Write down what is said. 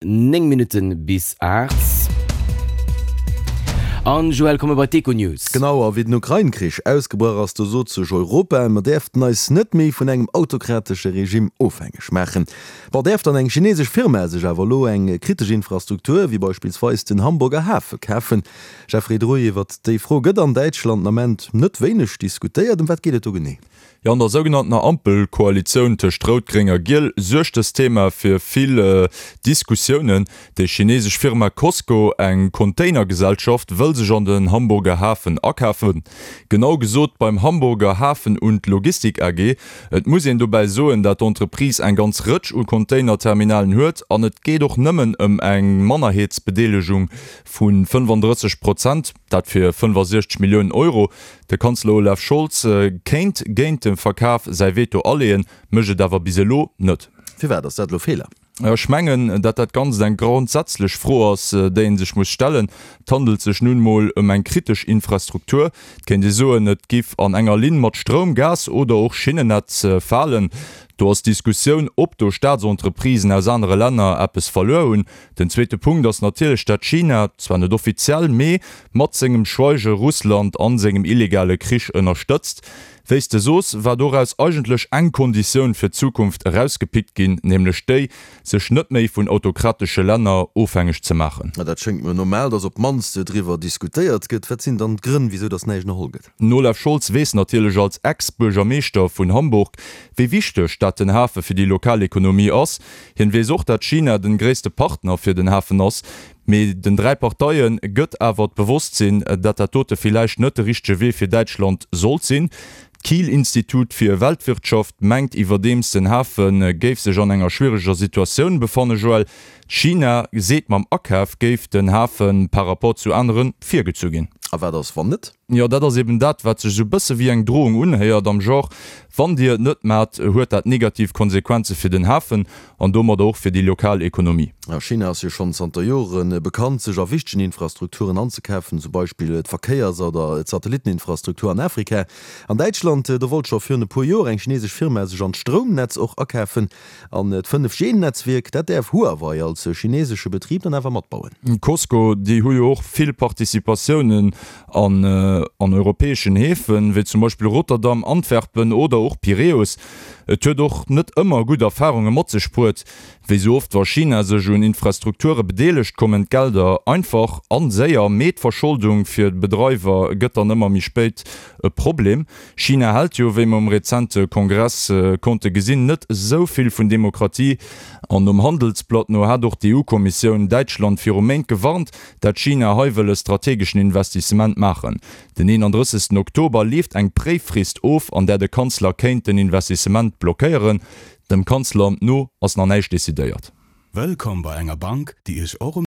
9 Minutten bis 8. An Joël, komme bei d'Econews. Genau, a wéi den Ukrain-Krich ausgebrach ass, do sot sech Europa, mer däerften eis net méi vun engem autokratesche Regime ofhängeg maachen. Bon, däerf dann eng chinesesch Firma sech awer elo eng kritesch Infrastruktur, wéi beispillsweis den Hamburger Hafe kafen? Jeffrey Druy, iwwert déi Fro gëtt an Däitschland den Ament net wéineg diskutéiert. Ëm wat geet et do genee? Jo, an der sougenanntener Ampelkoalitioun tëscht Rout, Gréng a Giel suergt dëst Thema fir vill Diskussiounen. Déi chinesesch Firma Cosco, eng Containergesellschaft, wëll sech an den Hamburger Hafen akafen. Genau gesot beim Hamburger Hafen und Logistik AG. Et muss een dobäi soen, dat d'Entreprise eng ganz Rëtsch u Containerterminalen huet an et geet och nëmmen ëm eng Mannerheetsbedeelegung vu 35 Prozent, dat fir 65 Milliounen Euro. De Kanzler Olaf Scholz kéint géint de Verkaf säi Veto aleeën, mécht et awer bis elo net. Firwat ass dat elo Feeler? Ech mengen, dat dat Ganzt eng grondsätzlech Fro ass, déi ee sech muss stellen. Et handelt sech nun emol ëm eng kritesch Infrastruktur. Et kéint ee soen, et giff an enger Linn mat Stroum, Gas oder och Schinnennetz falen. Do ass d'Diskussioun, ob do Staatsentreprisen aus anere Länner eppes verluer hunn. Den zweete Punkt ass natierlech, dat China, zwar net offiziell, mee mat sengem Schweige Russland an sengem illegale Krich ënnerstëtzt. Wéi s de soos, war doraus eigentlech eng Konditioun fir d'Zukunft erausgepickt ginn, nämlech déi, sech net méi vun autokratesche Länner ofhängeg ze maachen. Dat schéngt mir normal, datt op d'mannst driwwer diskutéiert gëtt. Wat sinn dann d'Grënn, wisou datt näischt ënnerholl gëtt? Den Olaf Scholz weess natierlech als Ex-Buergermeeschter vun Hamburg, wéi wichteg dat den Hafe fir déi lokal Ekonomie ass. Hien weess och, dat China den gréisste Partner fir den Hafen ass. Mee den 3 Parteien gëtt awer d'Bewosstsinn, dat dat dote villäicht net de richtege Wee fir Däitschland sollt sinn. D'Kiel-Institut fir Weltwirtschaft mengt iwwerdeems, den Hafe géif sech an enger schwiereger Situatioun befannen. Joël, China seet mam Akaf géif den Hafe par rapport zu anere virgezu ginn. A wat ass wann net? Jo, dat ass eben dat, wat sech esou bësse wéi eng Drohung unhéiert, am Genre, Wann Dir et net maacht, huet dat negativ Konsequenze fir den Hafen an domadder och fir déi lokal Ekonomie. China ass jo schonn zanter Jore bekannt, sech a wichtegen Infrastrukturen anzekafen, zum Beispill d'Verkéiers oder d'Satellitteninfrastruktur an Afrika. An Däitschland, do wollt scho virun e puer Joer eng chinesesch Firma sech an d'Stroumnetz och akafen. An d'Fënnef-G-Netzwierk, dat däerf Huawei als chinesesche Betrib dann awer matbauen. Cosco, déi hu jo och vill Participatiounen an an europäeschen Häfen, wéi zum Beispill Rotterdam, Antwerpen oder och Piräus. Et huet och net ëmmer gutt Erfarunge mat sech bruet. Wéi sou oft wa China sech un Infrastrukture bedeelegt, kommen d'Gelder einfach an séier, mee d'Verscholdung fir d'Bedreiwer gëtt dann ëmmer méi spéit e Problem. China hält jo, wéi mer um rezente Kongress konnte gesinn, net esou vill vun Demokratie. An nom Handelsblatt no hat och d'EU-Kommissioun Däitschland viru Méint gewarnt, dat China hei wëll e strategeschen Investissement maachen. Den 31 Oktober leeft eng Préiffrist of, an där de Kanzler kéint den Investissement blockéieren. Dem Kanzleramt no ass nach näischt decidéiert. Wëllkomm bei enger Bank, déi Iech och um.